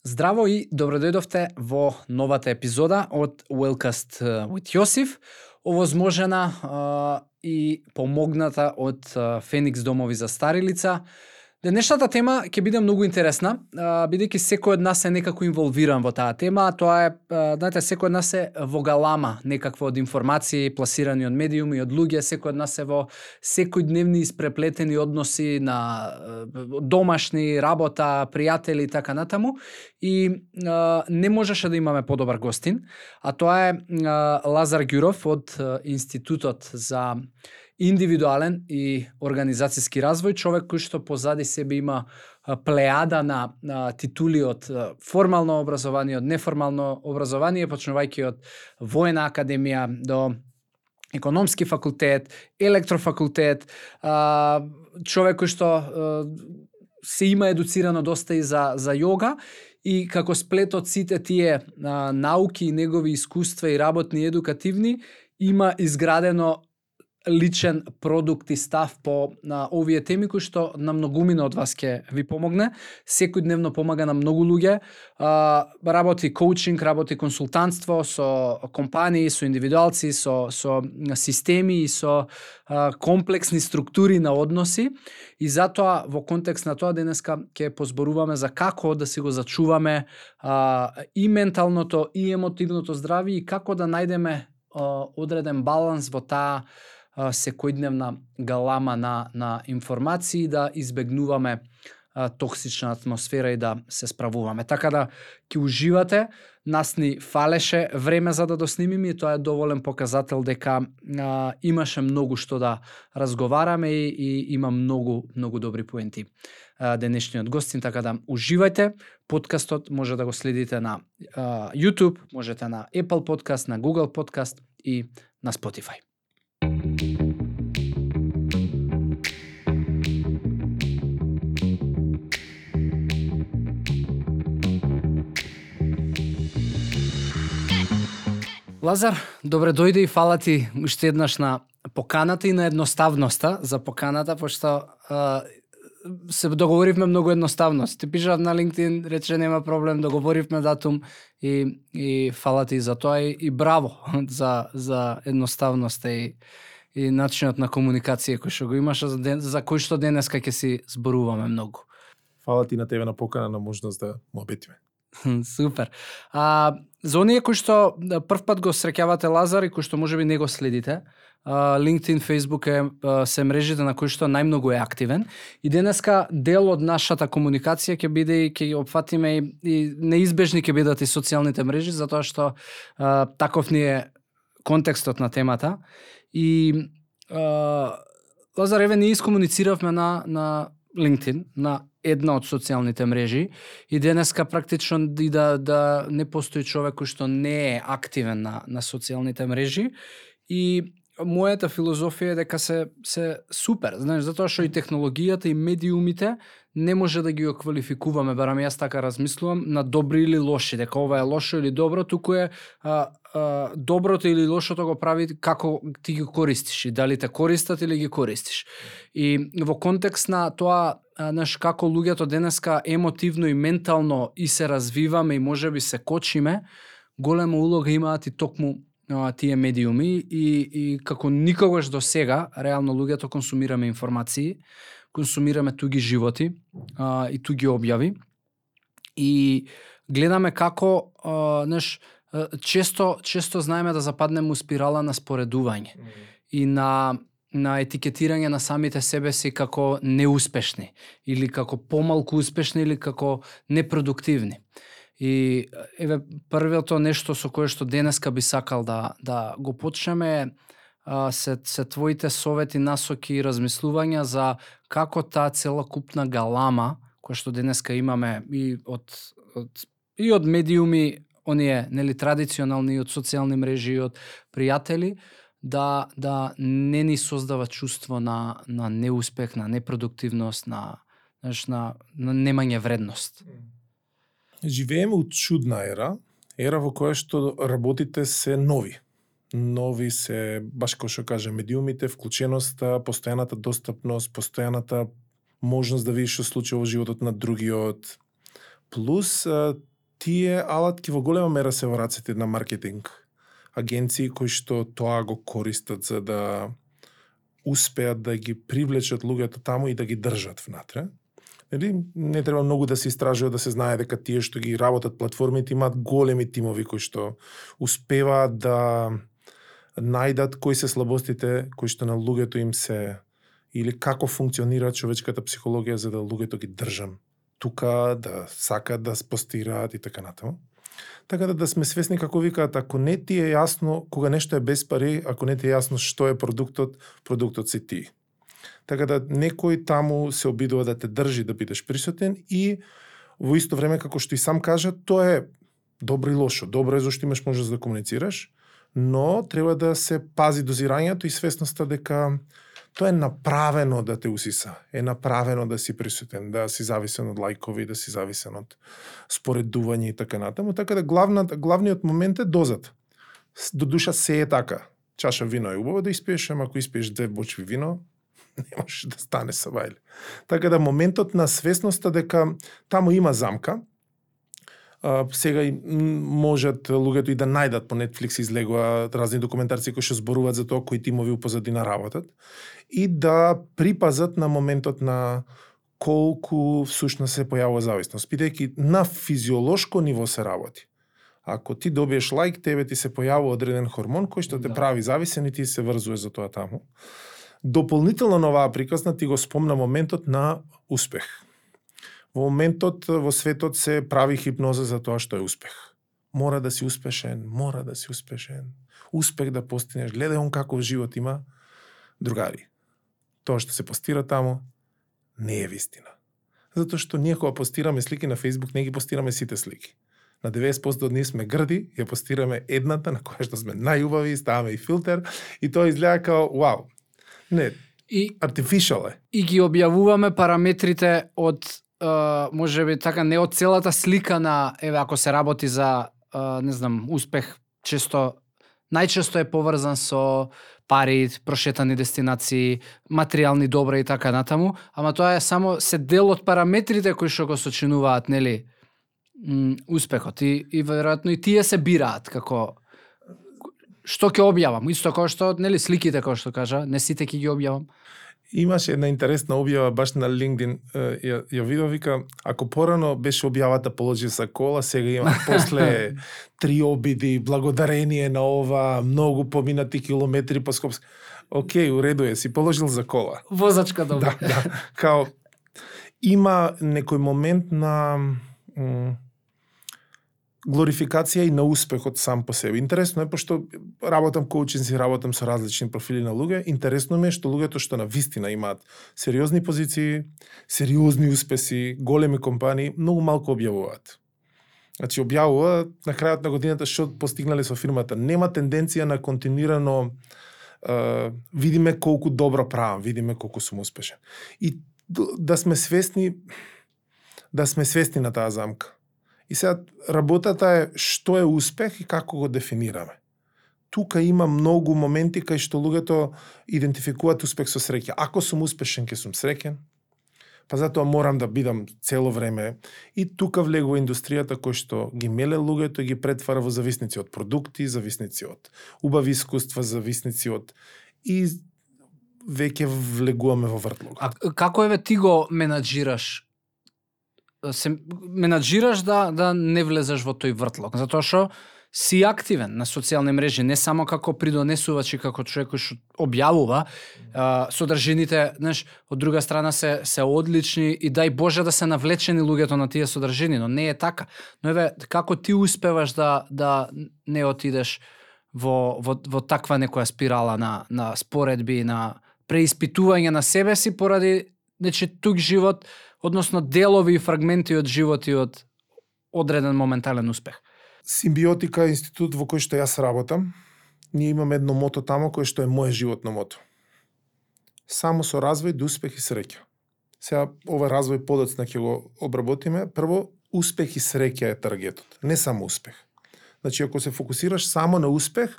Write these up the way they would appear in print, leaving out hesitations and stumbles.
Здраво и добродојдовте во новата епизода од Wellcast with Јосиф, овозможена и помогната од Феникс домови за стари лица. Денешната тема ќе биде многу интересна, бидејќи секој од нас е некако инволвиран во таа тема, тоа е, знаете, секој од нас е во галама некакво од информации пласирани од медиуми, од луѓе, секој од нас е во секојдневни испреплетени односи на домашни, работа, пријатели и така натаму, и не можеше да имаме подобар гостин, а тоа е Лазар Ѓуров од Институтот за индивидуален и организацијски развој, човек кој што позади себе има плејада на титули од формално образование, од неформално образование, почнувајќи од воена академија до економски факултет, електрофакултет, човек кој што се има едуцирано доста и за јога, и како сплет од сите тие науки и негови искуства и работни едукативни, има изградено личен продукт и став по овие теми кои што на многумина од вас ќе ви помогне. Секојдневно помага на многу луѓе, работи коучинг, работи консултантство со компании, со индивидуалци, со системи и со комплексни структури на односи, и затоа во контекст на тоа денеска ќе позборуваме за како да си го зачуваме и менталното и емотивното здравје и како да најдеме одреден баланс во таа секојдневна галама на информации, да избегнуваме токсична атмосфера и да се справуваме. Така да ќе уживате, нас ни фалеше време за да доснимиме и тоа е доволен показател дека имаше многу што да разговараме и има многу добри поенти денешниот гостин, така да уживајте. Подкастот може да го следите на YouTube, можете на Apple Podcast, на Google Podcast и на Spotify. Лазар, добре дојде и фала ти уште еднаш на поканата и на едноставноста за поканата, пошто се договоривме многу едноставно. Ти пишав на LinkedIn, рече нема проблем, договоривме датум и фала ти за тоа и браво за едноставноста и начинот на комуникација кој што го имаш, за кој што денеска ќе си зборуваме многу. Фала ти на тебе на покана, на можност да му обетиме. Супер. За оние кои што прв пат го среќавате Лазар и кои што можеби не го следите, LinkedIn, Facebook се мрежите на кои што најмногу е активен, и денеска дел од нашата комуникација ќе биде и ќе опфатиме и неизбежни ќе бидат и социјалните мрежи, затоа што таков ни е контекстот на темата. И Лазар, еве ние искомунициравме на LinkedIn, на една од социјалните мрежи, и денеска практично и да не постои човек кој што не е активен на социјалните мрежи, и мојата филозофија е дека се супер, знаеш, затоа што и технологијата и медиумите не може да ги квалификуваме, барам јас така размислувам, на добри или лоши, дека ова е лошо или добро, туку е доброто или лошото го прави како ти ги користиш и дали те користат или ги користиш. И во контекст на тоа, знаеш, како луѓето денеска емотивно и ментално и се развиваме и можеби се кочиме, голема улога имаат и токму тие медиуми, и како никогаш до сега, реално луѓето консумираме информации, консумираме туги животи и туги објави, и гледаме како, знаеш, често знаеме да западнеме у спирала на споредување и на етикетирање на самите себе си како неуспешни или како помалку успешни или како непродуктивни. И еве првото нешто со кое што денеска би сакал да го почнеме се твоите совети, насоки и размислувања за како таа целокупна галама која што денеска имаме и од медиуми, оние нели традиционални, и од социјални мрежи, и од пријатели, да не ни создава чувство на неуспех, на непродуктивност, на немање вредност. Живееме у чудна ера во која што работите се нови. Нови се, баш како што кажа, медиумите, вклученоста, постојаната достапност, постојаната можност да видиш што случува во животот на другиот. Плюс тие алатки во голема мера се во рацете на маркетинг агенции кои што тоа го користат за да успеат да ги привлечат луѓето таму и да ги држат внатре. Не треба многу да се истражува да се знае дека тие што ги работат платформите имаат големи тимови кои што успеваат да најдат кои се слабостите кои што на луѓето им се или како функционира човечката психологија за да луѓето ги држам тука, да сакат да постираат и така натаму. Така да сме свесни како викаат, ако не ти е јасно кога нешто е без пари, ако не ти е јасно што е продуктот, продуктот си ти. Така да некој таму се обидува да те држи да бидеш присутен и во исто време како што и сам кажа, тоа е добро и лошо. Добро е зашто имаш можност да комуницираш, но треба да се пази дозирањето и свесноста дека тоа е направено да те усиса, е направено да си присутен, да си зависен од лајкови, да си зависен од споредување и така натаму. Така да главниот момент е дозата. До душа се е така. Чаша вино е убаво да испиеш, ама ако испиеш 2 бочви вино, не можеш да стане сабајле. Така да моментот на свесноста дека таму има замка, сега и можат луѓето и да најдат по Netflix излегува разни документарци кои што зборуваат за тоа кои тимови у позадина работат и да припазат на моментот на колку всушност се појавува зависност. Бидејќи на физиолошко ниво се работи. Ако ти добиеш лајк, тебе ти се појавува одреден хормон кој што те прави зависен и ти се врзува за тоа таму. Дополнително на оваа приказна ти го спомна моментот на успех. Во моментот во светот се прави хипноза за тоа што е успех. Мора да си успешен, мора да си успешен. Успех да постигнеш. Гледај он каков живот има. Другари, тоа што се постира таму не е вистина. Затоа што ние кога постираме слики на Facebook, не ги постираме сите слики. На 90% од ние сме грди, ја постираме едната на која што сме најубави, ставаме и филтер и тоа изгледа као вау. Не, artificial е. И ги објавуваме параметрите од може би така не од целата слика на еве ако се работи за не знам успех најчесто е поврзан со пари, прошетани дестинации, материјални добра и така натаму, ама тоа е само се дел од параметрите кои што го сочинуваат, нели, успехот и веројатно и тие се бираат како што ќе објавам, исто како што нели сликите како што кажа, не сите ќе ги објавам. Имаше една интересна објава баш на LinkedIn, ја видов, вика, ако порано беше објавата положи за кола, сега има после 3 обиди, благодарение на ова, многу поминати километри по Скопске. Океј, уреду е, си положил за кола. Возачка добра. Да. Као, има некој момент на глорификација и на успехот сам по себе. Интересно е, пошто работам коучинзи, работам со различни профили на луѓе, интересно ми е што луѓето што на вистина имаат сериозни позиции, сериозни успеси, големи компании, многу малку објавуваат. Значи, објавува на крајот на годината што постигнале со фирмата. Нема тенденција на континуирано видиме колку добро правам, видиме колку сум успешен. И да сме свесни на таа замка. И сега работата е што е успех и како го дефинираме. Тука има многу моменти кај што луѓето идентификуваат успех со среќа. Ако сум успешен, ќе сум среќен, па затоа морам да бидам цело време. И тука влегува индустријата кој што ги меле луѓето и ги претвара во зависници од продукти, зависници од убави искуства, зависници од и веќе влегуваме во вртлог. А како еве ти го менаџираш? Се менаџираш да не влезеш во тој вртлог, затоа што си активен на социјални мрежи, не само како придонесувач и како човек кој што објавува, содржините, знаеш, од друга страна се одлични и дај Боже да се навлечени луѓето на тие содржини, но не е така. Но еве како ти успеваш да не отидеш во таква некоја спирала на споредби, на преиспитување на себе си поради тук живот, односно делови и фрагменти од живот и од одреден моментален успех. Симбиотика е институт во кој што јас работам. Ние имаме едно мото тамо кое што е моје животно мото. Само со развој до успех и среќа. Сега ова развој подоцна ќе го обработиме. Прво, успех и среќа е таргетот, не само успех. Значи, ако се фокусираш само на успех,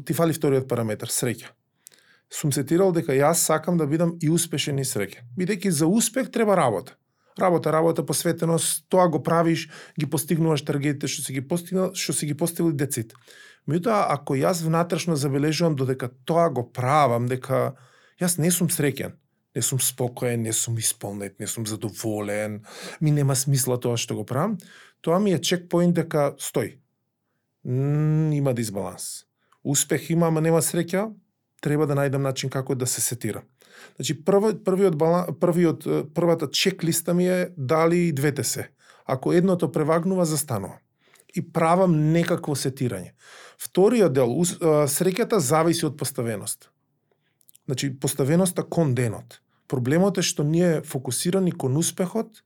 ти фали вториот параметар, среќа. Сум сетирал дека јас сакам да бидам и успешен и среќен. Бидејќи за успех треба работа. Работа, посветеност, тоа го правиш, ги постигнуваш таргетите што си ги постигнали децит. Меѓутоа, ако јас внатрешно забележувам додека тоа го правам, дека јас не сум среќен, не сум спокоен, не сум исполнет, не сум задоволен, ми нема смисла тоа што го правам, тоа ми е чекпоинт дека стој. Има дисбаланс. Успех има, ама нема среќа, треба да најдам начин како да се сетира. Значи, првата чеклиста ми е дали и двете се. Ако едното превагнува, застанува. И правам некакво сетирање. Вториот дел, среќата зависи од поставеност. Значи, поставеноста кон денот. Проблемот е што ние фокусирани кон успехот.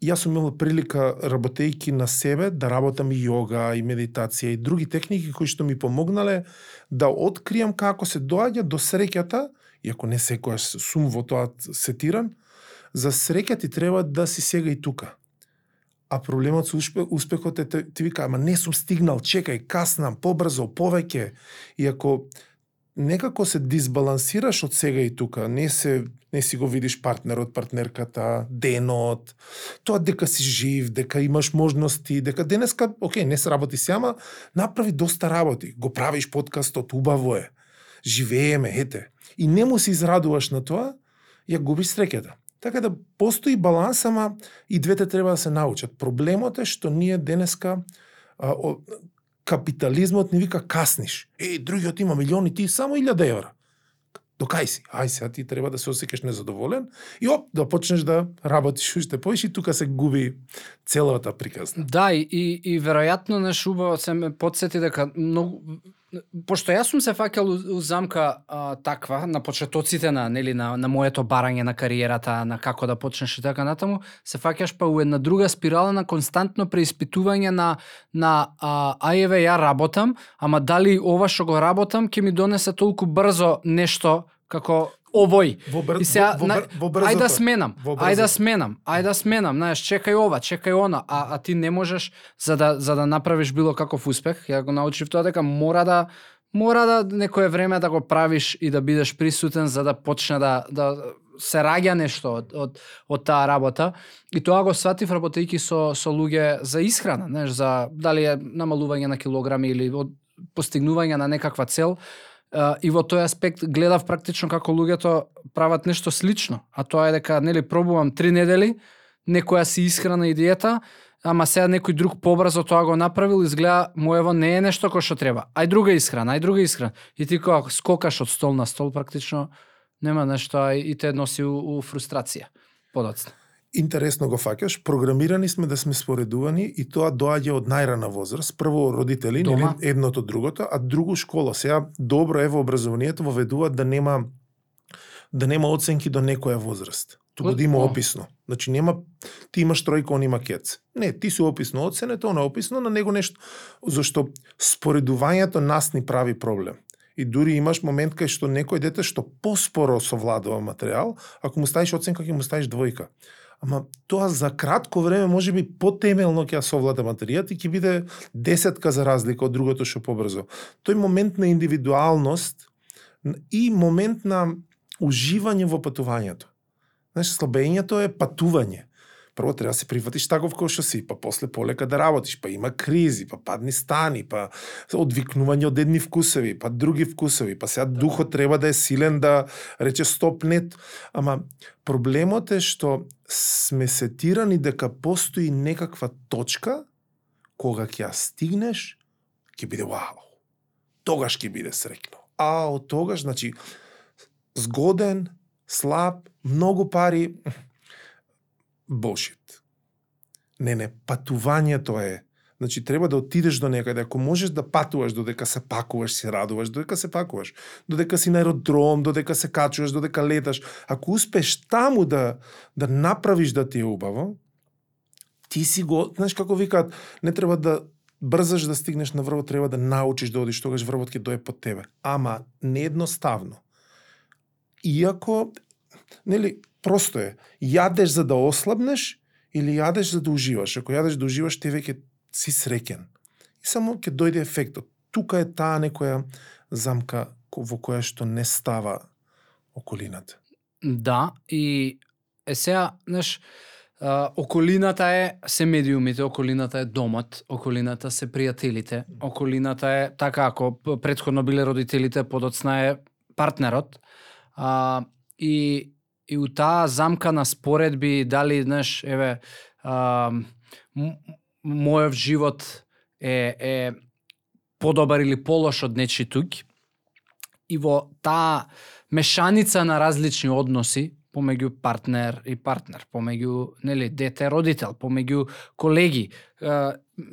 Јас сум имал прилика, работејќи на себе, да работам и јога, и медитација, и други техники кои што ми помогнале да откријам како се доаѓа до среќата, иако не секојаш сум во тоа сетиран, за среќа ти треба да си сега и тука. А проблемот со успехот е ти вика, ама не сум стигнал, чекај, каснам, побрзо, повеќе. И ако некако се дисбалансираш од сега и тука, не си го видиш партнерот, партнерката, денот, тоа дека си жив, дека имаш можности, дека денеска, не се работи си, ама направи доста работи. Го правиш подкастот, убаво е. Живееме, ете. И не му се израдуваш на тоа, ја губиш среќата. Така да постои баланс, ама и двете треба да се научат. Проблемот е што ние денеска капитализмот ни вика касниш. Другиот има милиони, ти само 1000 евра. Докај си? Ај сега ти треба да се осеќаш незадоволен и да почнеш да работиш уште повеќе и тука се губи целата приказна. Да, и веројатно убаво се ме потсети дека многу, пошто јас сум се фаќал у замка таква на почетоците на моето барање на кариерата, на како да почнеш и така натаму, се фаќаш па у една друга спирала на константно преиспитување на ајеве ја работам, ама дали ова што го работам ќе ми донесе толку брзо нешто како овој. И сега, ајде да сменам, знаеш, чекај ова, чекај она, а ти не можеш за да направиш било каков успех. Ја го научив тоа дека мора да некое време да го правиш и да бидеш присутен за да почне да се раѓа нешто од таа работа. И тоа го сватив работејќи со луѓе за исхрана, знаеш, за дали е намалување на килограми или постигнување на некаква цел. И во тој аспект гледав практично како луѓето прават нешто слично, а тоа е дека пробувам 3 недели, некоја си исхрана и диета, ама сега некој друг побрзо тоа го направил, изгледа моево не е нешто кој што треба. Ај друга исхрана. И ти кога скокаш од стол на стол практично нема нешто и те носи у фрустрација подоцна. Интересно го фаќаш, програмирани сме да сме споредувани и тоа доаѓа од најрана возраст. Прво родители, едното другото, а друго школа. Сега добро е во образованието воведуваат да нема оценки до некоја возраст. Туку да има описно. Значи ти имаш тројка, он има кец. Не, ти си описно оценето, он е описно, на него нешто. Зашто споредувањето нас ни прави проблем. И дури имаш момент кај што некој дете што поспоро совладува материјал, ако му ставиш оценка, ќе му ставиш 2. Ама тоа за кратко време може би потемелно ќе ја совлада материјат и ќе биде 10 за разлика од другото што побрзо. Тој момент на индивидуалност и момент на уживање во патувањето. Знаеш, слабењето е патување. Прво треба да се прифатиш таков кој што си, па после полека да работиш, па има кризи, па падни стани, па одвикнување од едни вкусови, па други вкусови, па сега духот треба да е силен да рече стоп нет. Ама проблемот е што сме сетирани дека постои некаква точка кога ќе ја стигнеш, ќе биде вау. Тогаш ќе биде среќно. А од тогаш, значи, згоден, слаб, многу пари, bullshit. Не, патувањето е. Значи, треба да отидеш до некаде. Ако можеш да патуваш, додека се пакуваш, се радуваш, додека се пакуваш, додека си на аеродром, додека се качуваш, додека леташ. Ако успеш таму да направиш да ти е убаво, ти си го, знаеш како викаат, не треба да брзаш да стигнеш на врвот, треба да научиш да одиш, тогаш врвот ќе дое под тебе. Ама неедноставно. Иако, просто е, јадеш за да ослабнеш или јадеш за да уживаш. Ако јадеш да уживаш, ти веќе си среќен. И само ќе дојде ефектот. Тука е таа некоја замка во која што не става околината. Да, и сега, знаеш, околината се медиумите, околината е домот, околината се пријателите, околината е така, ако претходно биле родителите, подоцна е партнерот. И у таа замка на споредби, дали, знаеш, еве, мојов живот е подобар или полош од нечи туѓ, и во таа мешаница на различни односи помеѓу партнер и партнер, помеѓу, нели, дете родител, помеѓу колеги,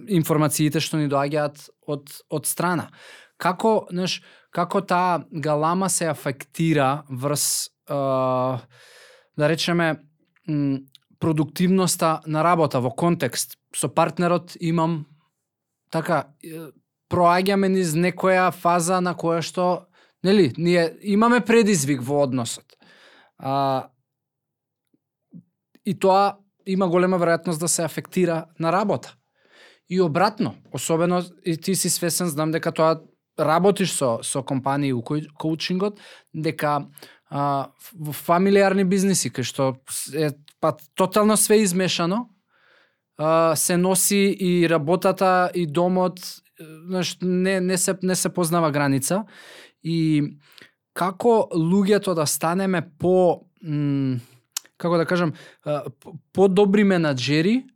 информациите што ни доаѓаат од страна. Како, знаеш, како таа галама се афектира врз, да речеме, продуктивноста на работа во контекст со партнерот имам така, проаѓаме низ некоја фаза на која што, нели, ние имаме предизвик во односот. И тоа има голема веројатност да се афектира на работа. И обратно, особено и ти си свесен, знам дека тоа работиш со компании у коучингот, дека во фамилиарни бизниси кај што е тотално све измешано, се носи и работата и домот, знаеш, не се познава граница. И како луѓето да станеме како да кажам, по-добри менаџери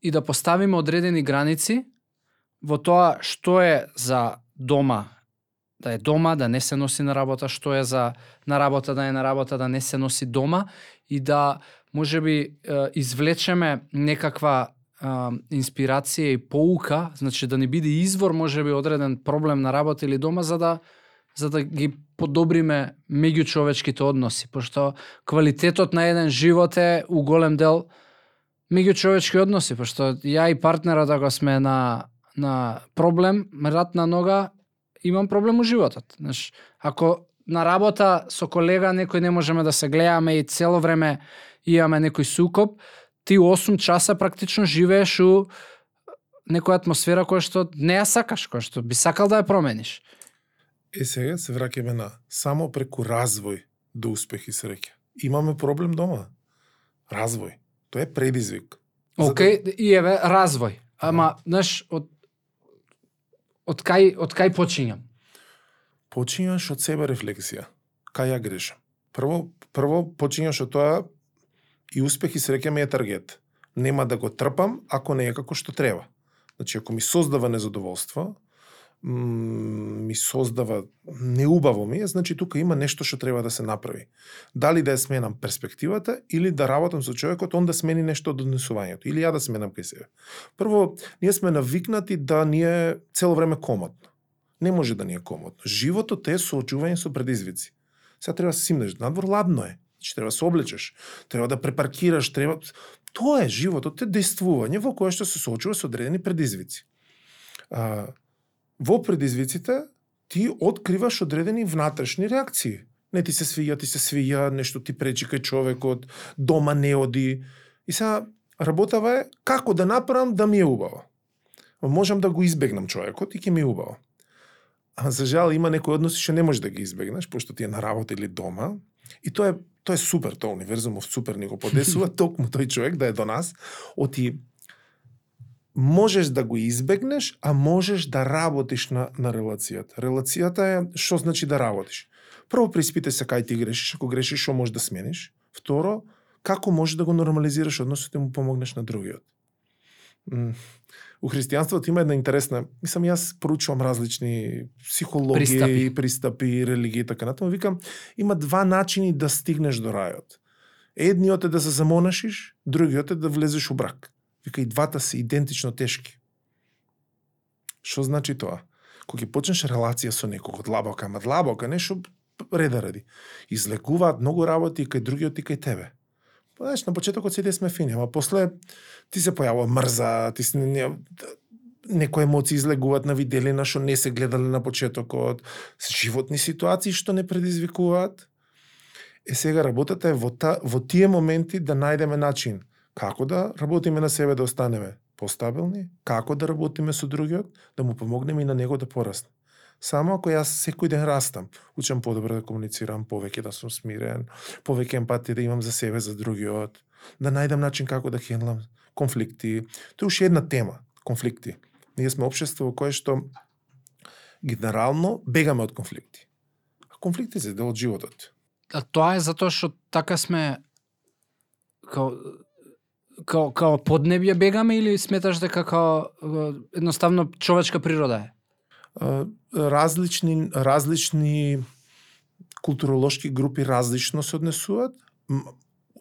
и да поставиме одредени граници во тоа што е за дома, да е дома, да не се носи на работа, што е за на работа, да е на работа, да не се носи дома, и да можеби извлечеме некаква инспирација и поука, значи да ни биде извор можеби одреден проблем на работа или дома, за да ги подобриме меѓучовечките односи, пошто квалитетот на еден живот е у голем дел меѓучовечки односи, пошто ја и партнерот ако сме на проблем, рат на нога, имам проблем у животот. Знаеш, ако на работа со колега некој не можеме да се гледаме и цело време имаме некој сукоп, ти 8 часа практично живееш у некоја атмосфера која што не ја сакаш, која што би сакал да ја промениш. Сега се враќаме на само преку развој до успех и среќа. Имаме проблем дома. Развој. Тоа е предизвик. Океј, и еве развој. Ама, знаеш, од кај почињам? Почињаш од себе рефлексија. Кај ја грешам? Прво почињаш од тоа и успех и среќа ми е таргет. Нема да го трпам ако не е како што треба. Значи, ако ми создава незадоволство, ми создава неубаво ми е, значи тука има нешто што треба да се направи. Дали да ја сменам перспективата или да работам со човекот, он да смени нешто од однесувањето, или ја да сменам кај себе. Прво, ние сме навикнати да ни е цело време комотно. Не може да ни е комотно. Животот е соочување со предизвици. Сега треба да се симнеш, надвор ладно е. Значи треба да се облечеш, треба да препаркираш, треба... Тоа е животот, е действување во кое што се соочува со одредени предизвици. Во предизвиците ти откриваш одредени внатрешни реакции. Не ти се свиѓа, нешто ти пречи кај човекот, дома не оди. И сега работава е како да направам да ми е убаво. Можам да го избегнам човекот и ќе ми е убаво. А за жал има некои односи што не можеш да ги избегнеш, пошто ти е на работа или дома. И тоа е супер, тоа универзумов супер ни го подесува, токму тој човек да е до нас, оти можеш да го избегнеш, а можеш да работиш на релацијата. Релацијата е што значи да работиш. Прво преиспитај се кај ти грешиш, ако грешиш што можеш да смениш. Второ, како можеш да го нормализираш односот и му помогнеш на другиот. У христијанството има една интересна, јас проучувам различни психологии, пристапи, религии и така натаму, викам, има два начини да стигнеш до рајот. Едниот е да се замонашиш, другиот е да влезеш у брак. Вика, и двата се идентично тешки. Што значи тоа? Кога ќе почнеш релација со некого, длабока, нешто реда ради. Излекуваат многу работи и кај другиот и кај тебе. Знаеш, на почетокот сите сме фини, ама после ти се појавува мрза, некои емоции излегуваат на виделина што не се гледале на почетокот, животни ситуации што не предизвикуваат. Сега работата е во тие моменти да најдеме начин како да работиме на себе да останеме постабилни, како да работиме со другиот, да му помогнеме и на него да порасне. Само ако јас секој ден растам, учам подобро да комуницирам, повеќе да сум смирен, повеќе емпатија да имам за себе, за другиот, да најдам начин како да хендлам конфликти. Тоа е уште една тема, конфликти. Ние сме општество во кое што генерално бегаме од конфликти. А конфликти се дел од животот. А тоа е затоа што така сме као поднебје бегаме или сметаш дека као едноставно човечка природа е? Различни културолошки групи различно се однесуваат.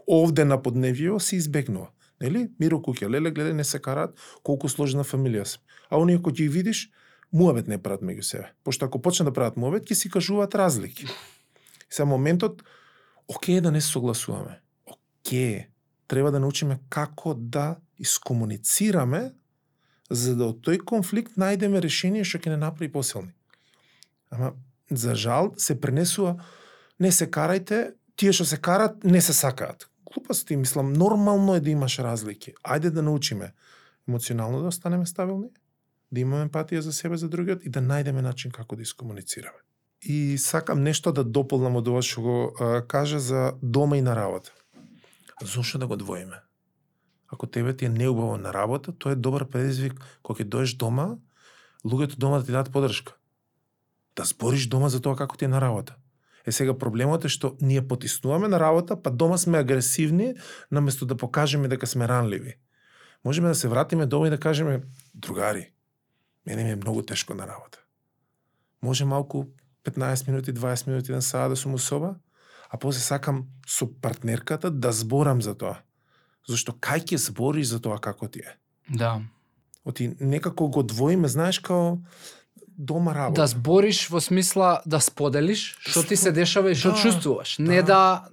Овде на подневјево се избегнува. Нели? Миро куќе, леле, гледај, не се караат, колку сложна фамилија се. А оние кои ги видиш, муабет не прават меѓу себе. Пошто ако почнат да прават муабет, ќе си кажуваат разлики. Сега моментот, окей да не согласуваме. Окей, треба да научиме како да искомуницираме, за да од тој конфликт најдеме решение што ќе не направи посилни. Ама, за жал, се пренесува, не се карајте, тие што се карат, не се сакаат. Глупости, мислам, нормално е да имаш разлики. Ајде да научиме емоционално да останеме стабилни, да имаме емпатија за себе, за другиот и да најдеме начин како да искомуницираме. И сакам нешто да дополнам од ова што го кажа за дома и на работа. Зошто да го двоиме? Ако тебе ти е неубаво на работа, тоа е добар предизвик кога ќе доеш дома, луѓето дома да ти дадат подршка. Да збориш дома за тоа како ти е на работа. Сега проблемот е што ние потиснуваме на работа, па дома сме агресивни, наместо да покажеме дека сме ранливи. Можеме да се вратиме дома и да кажеме, другари, мене ми е многу тешко на работа. Може малку 15 минути, 20 минути на саат да сум у соба, а после сакам со партнерката да зборам за тоа. Зашто кај ќе збориш за тоа како ти е? Да. Оти некако го двоиме, знаеш, као дома работа. Да збориш во смисла да споделиш што ти се дешава и што чувствуваш. Не да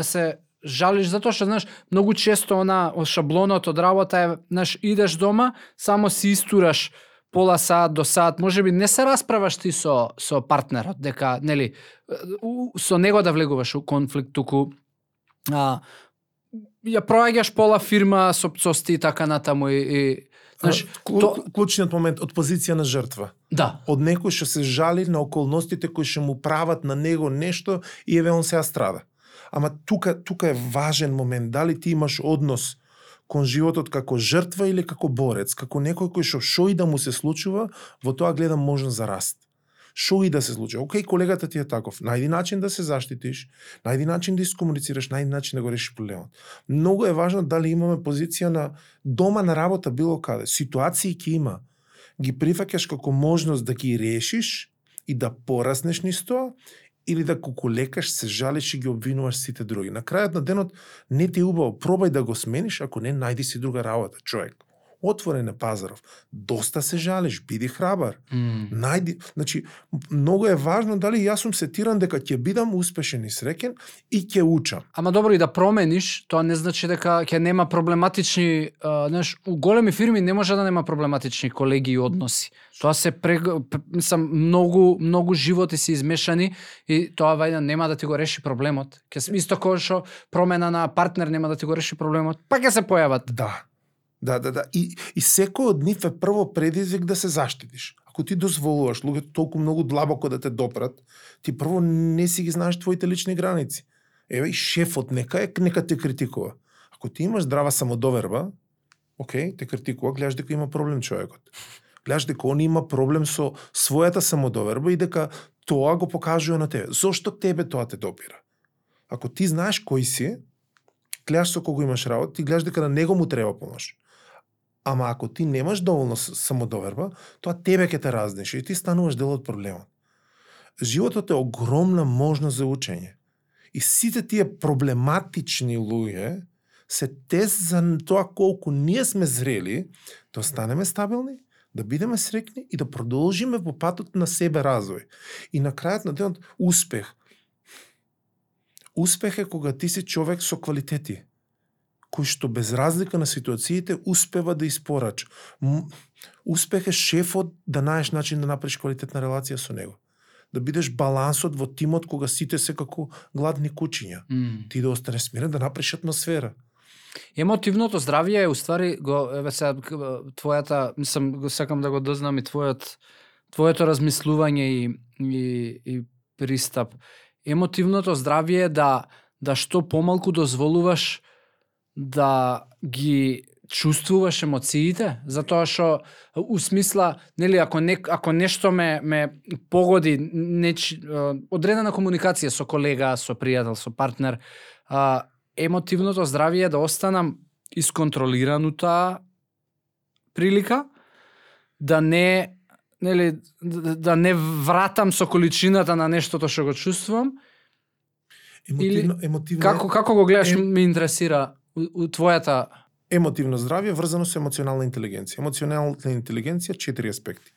се жалиш затоа што знаеш многу често од шаблонот од работа е знаеш идеш дома, само си истураш пола саат до саат, можеби не се расправаш ти со партнерот, дека нели со него да влегуваш у конфликт, туку ја проаѓаш пола фирма со пцости и така натаму и знаеш, клучниот момент од позиција на жртва. Да. Од некој што се жали на околностите кои што му прават на него нешто и еве он сега страда. Ама тука е важен момент, дали ти имаш однос кон животот како жртва или како борец, како некој кој што и да му се случува, во тоа гледам можност за раст. Шо и да се случи. Океј, колегата ти е таков. Најди начин да се заштитиш, најди начин да искомуницираш, најди начин да го решиш проблемот. Многу е важно дали имаме позиција на дома, на работа, било каде. Ситуации ќе има. Ги прифаќаш како можност да ги решиш и да пораснеш низ тоа, или да кукулекаш, се жалиш и ги обвинуваш сите други. На крајот на денот не ти е убаво, пробај да го смениш, ако не, најди си друга работа, човек. Отворен е пазаров. Доста се жалиш, биди храбар. Најди, значи, многу е важно дали јас сум сетиран дека ќе бидам успешен и среќен и ќе учам. Ама добро и да промениш, тоа не значи дека ќе нема проблематични, знаеш, у големи фирми не може да нема проблематични колеги и односи. Тоа се мислам многу животи се измешани и тоа вајда нема да ти го реши проблемот. Исто како што промена на партнер нема да ти го реши проблемот, па ќе се појават. Да. И секој од нив е прво предизвик да се заштитиш. Ако ти дозволуваш луѓето толку многу длабоко да те допрат, ти прво не си ги знаеш твоите лични граници. Еве и шефот нека те критикува. Ако ти имаш здрава самодоверба, окей, те критикува, гледаш дека има проблем човекот. Гледаш дека он има проблем со својата самодоверба и дека тоа го покажува на тебе. Зошто тебе тоа те допира? Ако ти знаеш кој си, гледаш со кого имаш работа, ти гледаш дека на него му треба помош. Ама ако ти немаш доволно самодоверба, тоа тебе ќе те разнеше и ти стануваш дел од проблемот. Животот е огромна можност за учење. И сите тие проблематични луѓе се тест за тоа колку ние сме зрели да останеме стабилни, да бидеме среќни и да продолжиме по патот на себе развој. И на крајот на денот успех. Успех е кога ти си човек со квалитети, кој што без разлика на ситуациите успева да испорача. Успех е шефот да најдеш начин да направиш квалитетна релација со него. Да бидеш балансот во тимот кога сите се како гладни кучиња. Ти да останеш смирен, да направиш атмосфера. Емотивното здравје е уствари твојата, мислам, сакам да го дознам и твојот твоето размислување и пристап. Емотивното здравје е да што помалку дозволуваш да ги чувствуваш емоциите, затоа што у смисла, нели, ако нешто ме погоди, одредена комуникација со колега, со пријател, со партнер, емотивното здравје е да останам исконтролиран у таа прилика, да не вратам со количината на нештото што го чувствувам. Емотивно Како го гледаш, ме интересира у твојата... Емотивно здравје врзано со емоционална интелигенција. Емоционална интелигенција 4 аспекти.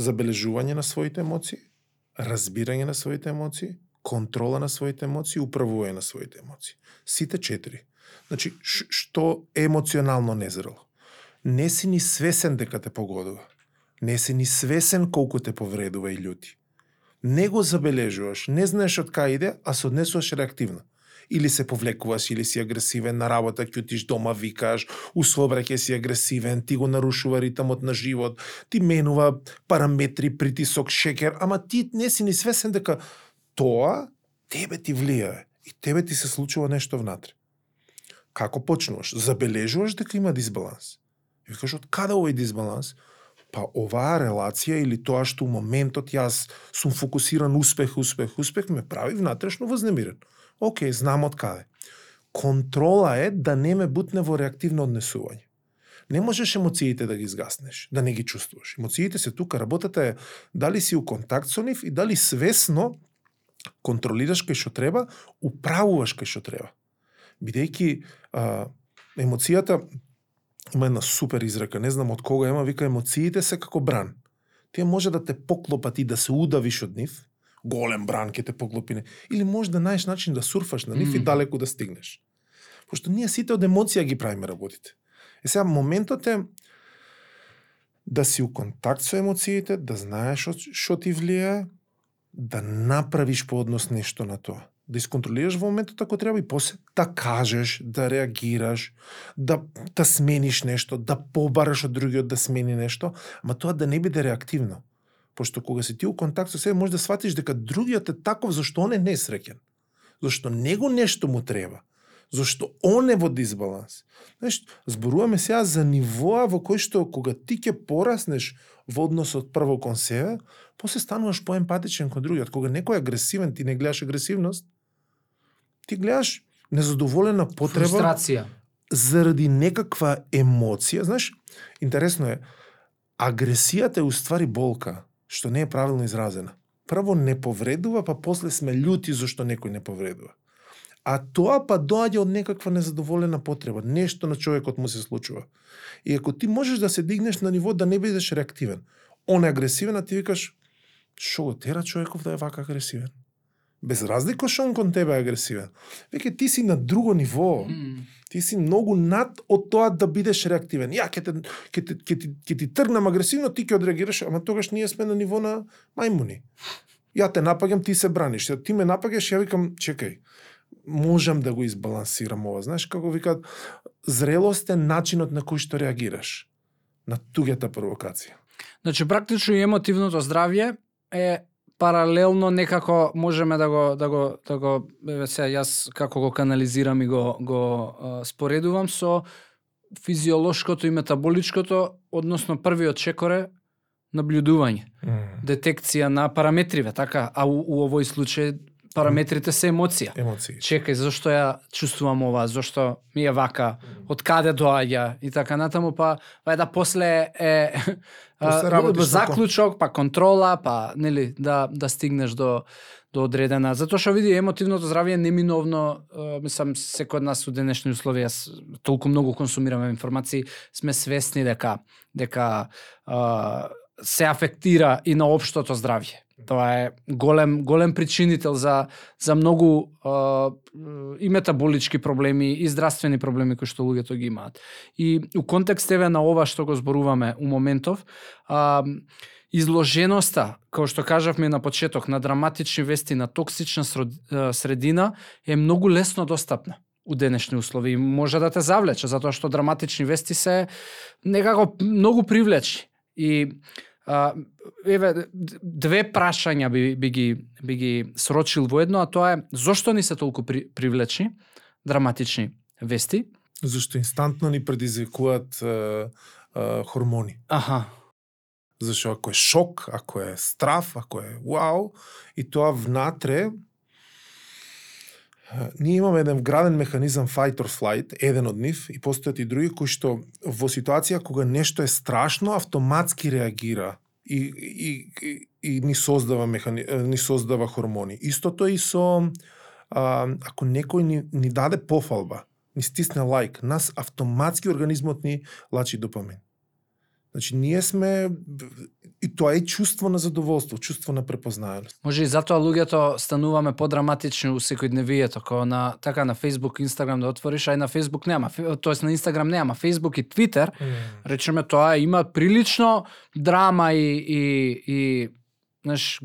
Забележување на своите емоции, разбирање на своите емоции, контрола на своите емоции, управување на своите емоции. Сите 4. Значи, што е емоционално незрело? Не си ни свесен дека те погодува. Не си ни свесен колку те повредува и љути. Не го забележуваш, не знаеш од кај иде, а се однесуваш реактивно. Или се повлекуваш, или си агресивен, на работа ќутиш, дома викаш, у сообраќај си агресивен, ти го нарушува ритмот на живот, ти менува параметри, притисок, шекер, ама ти не си ни свесен дека тоа тебе ти влијае и тебе ти се случува нешто внатре. Како почнуваш? Забележуваш дека има дисбаланс. И викаш, од каде овој дисбаланс? Па оваа релација или тоа што у моментот јас сум фокусиран успех, ме прави внатрешно вознемирен. Океј, знам од каде. Контрола е да не ме бутне во реактивно однесување. Не можеш емоциите да ги изгаснеш, да не ги чувствуваш. Емоциите се тука, работата е дали си у контакт со нив и дали свесно контролираш кај што треба, управуваш кај што треба. Бидејќи емоцијата има една супер изрека, не знам од кога ема, вика емоциите се како бран. Тие може да те поклопат и да се удавиш од нив, голем бран ќе те поклопи, или може да најдеш начин да сурфаш на нив и далеку да стигнеш. Пошто ние сите од емоција ги правиме работите. Сега моментот е да си у контакт со емоциите, да знаеш што ти влијае, да направиш по однос нешто на тоа. Да исконтролираш во моментот ако треба и после да кажеш, да реагираш, да смениш нешто, да побараш од другиот да смени нешто, ама тоа да не биде реактивно. Пошто кога си ти у контакт со себе, може да сватиш дека другиот е таков зашто он е несреќен. Зашто него нешто му треба. Зашто он е во дисбаланс. Знаеш, зборуваме сега за нивоа во кој што кога ти ќе пораснеш во односот прво кон себе, после стануваш поемпатичен кон другиот. Кога некој е агресивен, ти не гледаш агресивност, ти гледаш незадоволена потреба, фрустрација заради некаква емоција. Знаеш, интересно е, агресијата е уствари болка, што не е правилно изразена. Прво не повредува, па после сме љути зашто некој не повредува. А тоа па доаѓа од некаква незадоволена потреба, нешто на човекот му се случува. И ако ти можеш да се дигнеш на ниво да не бидеш реактивен, он е агресивен, а ти викаш, шо го тера човеков да е вака агресивен? Без разлика што он кон тебе е агресивен. Веќе ти си на друго ниво. Ти си многу над од тоа да бидеш реактивен. Ја ќе ти тргнам агресивно, ти ќе одреагираш, ама тогаш ние сме на ниво на мајмуни. Ја те напаѓам, ти се браниш. Ти ме напаѓаш, ја викам, чекај, можам да го избалансирам ова. Знаеш како викаат, зрелост е начинот на кој што реагираш на туѓата провокација. Значи практично и емотивното здравје е паралелно некако можеме да го сега јас како го канализирам и го споредувам со физиолошкото и метаболичкото, односно првиот чекор е наблюдување, детекција на параметриве, така, а у овој случај параметрите се емоција. Чекај, зашто ја чувствувам ова, зашто ми е вака, од каде доаѓа и така натаму, па да после е заклучок, па контрола, па нели да стигнеш до одредена. Затоа што види емотивното здравје неминовно, мислам секој од нас у денешни услови, толку многу консумираме информации, сме свесни дека се афектира и на општото здравје. Тоа е голем причинител за многу и метаболички проблеми и здравствени проблеми кои што луѓето ги имаат. И у контекст на ова што го зборуваме у моментов, изложеноста, како што кажавме на почеток, на драматични вести, на токсична средина е многу лесно достапна у денешни услови. Може да те завлече, затоа што драматични вести се некако многу привлечни. И еве две прашања би ги срочил во едно, а тоа е зошто ни се толку привлечни драматични вести? Зашто инстантно ни предизвикуваат хормони. Аха. Зашто ако е шок, ако е страф, ако е вау, и тоа внатре, ние имаме еден вграден механизам fight or flight, еден од нив, и постојат и други кои што во ситуација кога нешто е страшно, автоматски реагира и ни создава хормони. Истото и со ако некој ни даде пофалба, ни стисне лайк, нас автоматски организмот ни лачи допамин. Значи, ние сме, и тоа е чувство на задоволство, чувство на препознаеност. Може и затоа луѓето стануваме подраматични у секојдневието, како на Facebook, Instagram да отвориш, а и на Facebook нема, тоест на Instagram нема, Facebook и Twitter, речеме тоа има прилично драма и знаеш,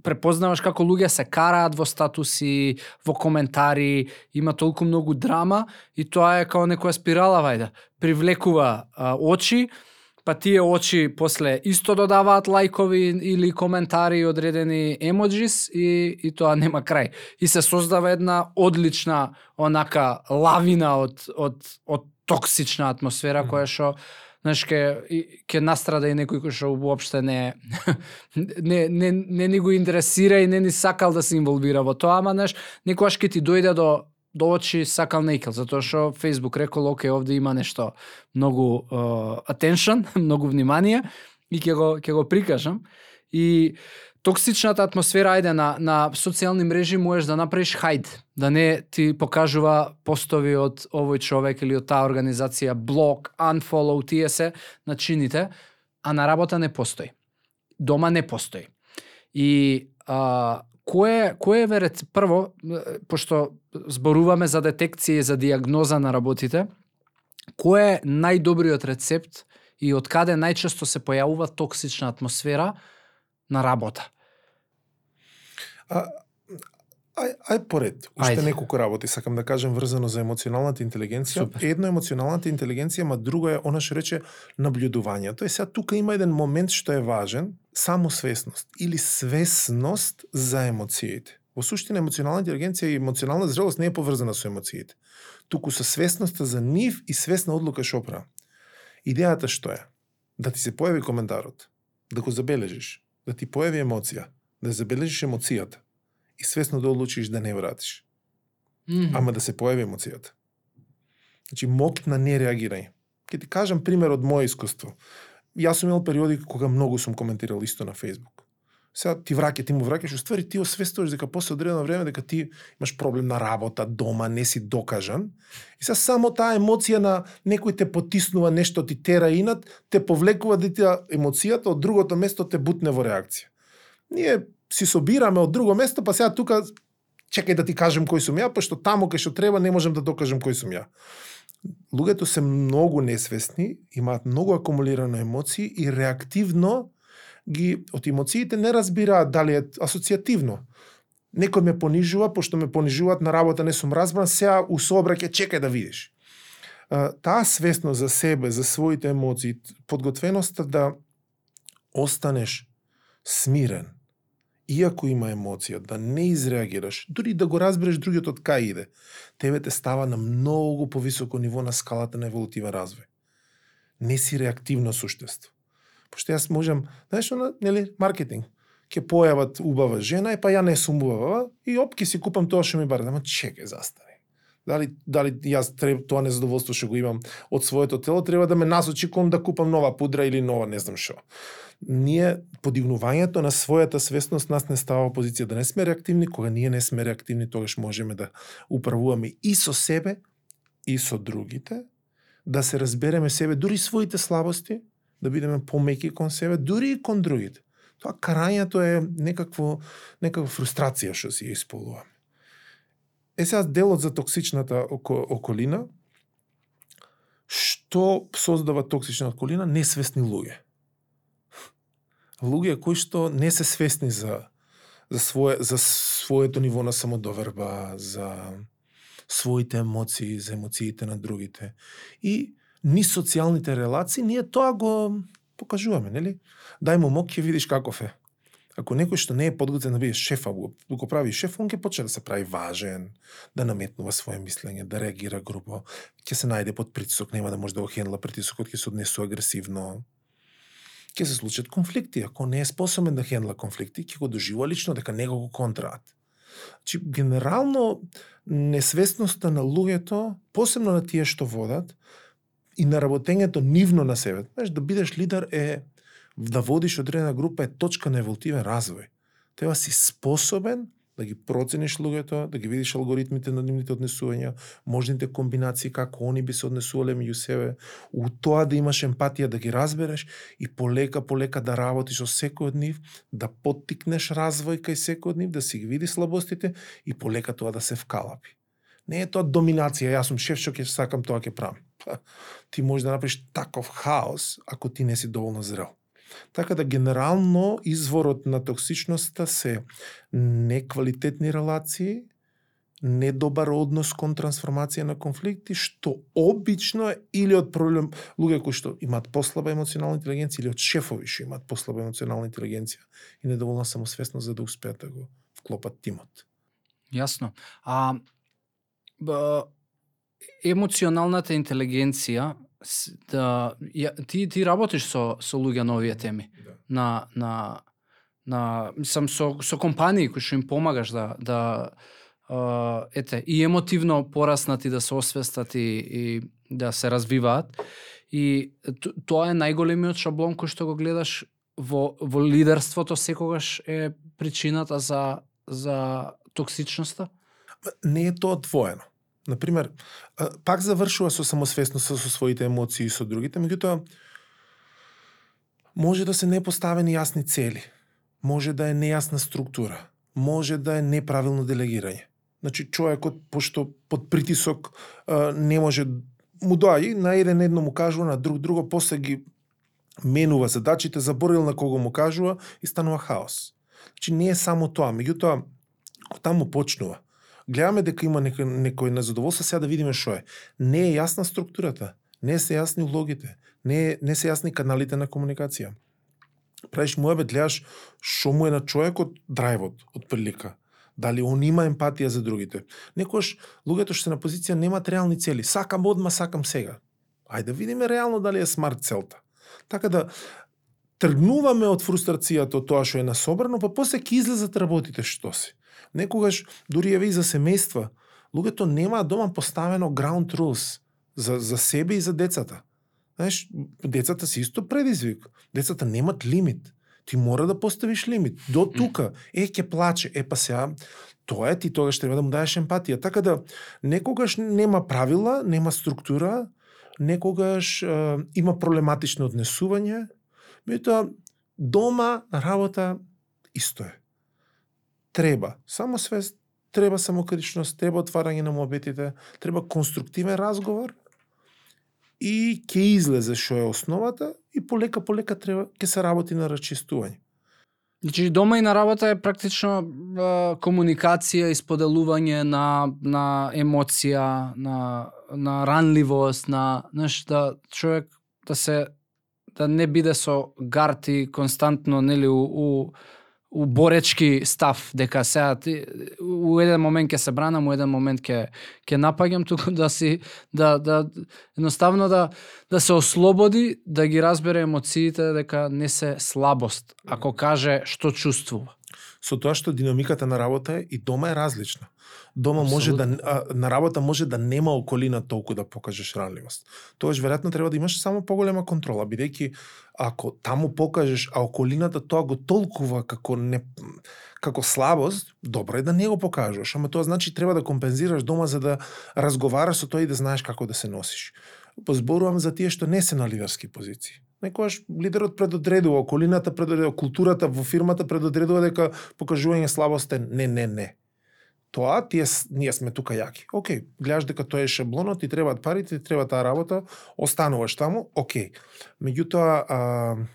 препознаваш како луѓе се караат во статуси, во коментари, има толку многу драма и тоа е како некоја спирала, вајде, привлекува очи, па тие очи после исто додаваат лајкови или коментари и одредени емоджис и тоа нема крај. И се создава една одлична онака лавина од токсична атмосфера која што знаеш ќе настрада и некој кој што уопште не ни го интересира и не ни сакал да се инволвира во тоа, ама знаеш, некогаш ќе ти дојде до очи сакал нејкел, затоа што Facebook рекол, окей, овде има нешто многу attention, многу внимание и ќе го прикажам. И токсичната атмосфера, ајде, на социјални мрежи можеш да направиш хајд, да не ти покажува постови од овој човек или од таа организација, блок, unfollow, тие се начините, а на работа не постои. Дома не постои. И кој е прво, пошто зборуваме за детекција и за диагноза на работите, кој е најдобриот рецепт и од каде најчесто се појавува токсична атмосфера на работа? Ај поред, уште неколку работи сакам да кажем врзано за емоционалната интелигенција. Супер. Едно е емоционалната интелигенција, ма друго е она што рече наблюдувањето. Сега тука има еден момент што е важен, самосвесност или свесност за емоциите. Во суштина емоционална интелигенција и емоционална зрелост не е поврзана со емоциите. Туку со свесноста за нив и свесна одлука што правам. Идејата што е? Да ти се појави коментарот, да го забележиш, да ти појави емоција, да забележиш емоцијата и свесно да одлучиш да не вратиш. Ама да се појави емоцијата. Значи, моќ на нереагирање. Ке ти кажам пример од моје искуство. Јас сум имал периоди кога многу сум коментирал исто на Facebook. Сега ти му враќаш, уствари ти освестуваш дека после одредено време дека ти имаш проблем на работа, дома, не си докажан. И сега само таа емоција на некој те потиснува, нешто ти тера инат, те повлекува да ти емоцијата од другото место те бутне во реакција. Ние си собираме од друго место, па сега тука чекај да ти кажем кој сум ја, па што таму кај што треба не можем да докажем кој сум ја. Луѓето се многу несвесни, имаат многу акумулирано емоции и реактивно од емоциите не разбираат дали е асоцијативно. Некој ме понижува, пошто ме понижуваат на работа, не сум разбран, сега у сообраќај чекај да видиш. Таа свесност за себе, за своите емоции, подготвеноста да останеш смирен, иако има емоција, да не изреагираш, дури да го разбереш другиот од кај иде, тебе те става на многу повисоко ниво на скалата на еволутивен развој. Не си реактивно суштество. Пошто јас можам, знаеш, нели, маркетинг, ќе појават убава жена, па ја не сум убава, и опки си купам тоа што ми бара. Ама чекај, застави. Дали јас тоа незадоволство што го имам од своето тело, треба да ме насочи кон да купам нова пудра или нова не знам што. Ние, подигнувањето на својата свесност нас не става во позиција да не сме реактивни. Кога ние не сме реактивни, тогаш можеме да управуваме и со себе, и со другите, да се разбереме себе, дури своите слабости, да бидеме помеки кон себе, дури и кон другите. Тоа карањето е некаква фрустрација што си ја исполнуваме. Сега делот за токсичната околина, што создава токсична околина? Несвесни луѓе. Луѓе кои што не се свесни за своето ниво на самодоверба, за своите емоции, за емоциите на другите. И ни социјалните релации, ние тоа го покажуваме, нели? Дај му мок, ќе видиш каков е. Ако некој што не е подготвен да биде шеф, а го прави шеф, он ќе почне да се прави важен, да наметнува свое мислење, да реагира грубо, ќе се најде под притисок, нема да може да го хендла притисокот, ќе се однесува агресивно. Ќе се случат конфликти, ако не е способен да хендла конфликти, ќе го доживува лично дека него го контраат. Значи, генерално, несвесноста на луѓето, посебно на тие што водат, и на работењето нивно на себе, знаеш, да бидеш лидер е да водиш одредена група е точка на еволутивен развој. Треба си способен да ги процениш луѓето, да ги видиш алгоритмите на нивните однесувања, можните комбинации како они би се однесувале меѓу себе, у тоа да имаш емпатија, да ги разбереш и полека да работиш со секој од нив, да поттикнеш развој кај секој од нив, да си ги видиш слабостите и полека тоа да се вкалапи. Не е тоа доминација, јас сум шеф, што ќе сакам тоа ќе правам. Ти можеш да направиш таков хаос ако ти не си доволно зрел. Така да генерално изворот на токсичноста се неквалитетни релации, недобар однос кон трансформација на конфликти, што обично е или од проблем луѓе кои што имаат послаба емоционална интелигенција или од шефови што имаат послаба емоционална интелигенција и недоволна самосвесност за да успеат да го вклопат тимот. Јасно. Емоционалната интелигенција, ти работиш со луѓе на овие теми. Да. Мислам со компании кои што им помагаш и емотивно пораснати да се освестат и да се развиваат. И тоа е најголемиот шаблон кој што го гледаш во лидерството секогаш е причината за токсичноста? Не е тоа двоено. Например, пак завршува со самосвесноста со своите емоции и со другите, меѓутоа може да се непоставени јасни цели, може да е нејасна структура, може да е неправилно делегирање. Значи, човекот, пошто под притисок не може, му доаѓа, на едно му кажува, на друго, после ги менува задачите, заборил на кого му кажува и станува хаос. Значи, не е само тоа, меѓутоа, таму почнува. Гледаме дека има некој незадоволство, сега да видиме што е. Не е јасна структурата, не се јасни улогите, не се јасни каналите на комуникација. Правиш муабет, гледаш што му е на човекот драйвот од прилика. Дали он има емпатија за другите. Некојаш луѓето што се на позиција немаат реални цели. Сакам одма, сакам сега. Ајде да видиме реално дали е смарт целта. Така да тргнуваме од фрустрацијата од тоа што е насобрано, па после ќе излезат работите што си. Некогаш, дури еве и за семејства, луѓето немаат дома поставено ground rules за себе и за децата. Знаеш, децата се исто предизвик. Децата немат лимит. Ти мора да поставиш лимит. До тука. Ќе плаче. Па сега, тоа е, ти тогаш треба да му даеш емпатија. Така да, некогаш нема правила, нема структура, некогаш има проблематично однесување, меѓутоа дома, на работа, исто е. Треба самосвест, треба самокритичност, треба отварање на муабетите, треба конструктивен разговор и ќе излезе што е основата и полека треба ќе се работи на расчистување. Значи дома и на работа е практично комуникација и споделување на емоција, на ранливост, да човек да не биде со гарти константно, нели, у боречки став, дека сега у еден момент ќе се бранам, у еден момент ќе напаѓам, туку да едноставно да се ослободи, да ги разбере емоциите, дека не се слабост, ако каже што чувствува. Со тоа што динамиката на работа и дома е различна. Дома може на работа може да нема околина толку да покажеш ранливост. Тогаш веројатно треба да имаш само поголема контрола, бидејќи ако таму покажеш, а околината тоа го толкува како слабост, добро е да не го покажеш, ама тоа значи треба да компензираш дома за да разговараш со тоа и да знаеш како да се носиш. Позборувам за тие што не се на лидерски позиции. Некојаш лидерот предодредува, околината предодредува, културата во фирмата предодредува дека покажување слабост е не. Тоа ние сме тука јаки. Океј, гледаш дека тоа е шаблонот, ти требаат парите, ти треба таа работа, остануваш таму, океј. Меѓутоа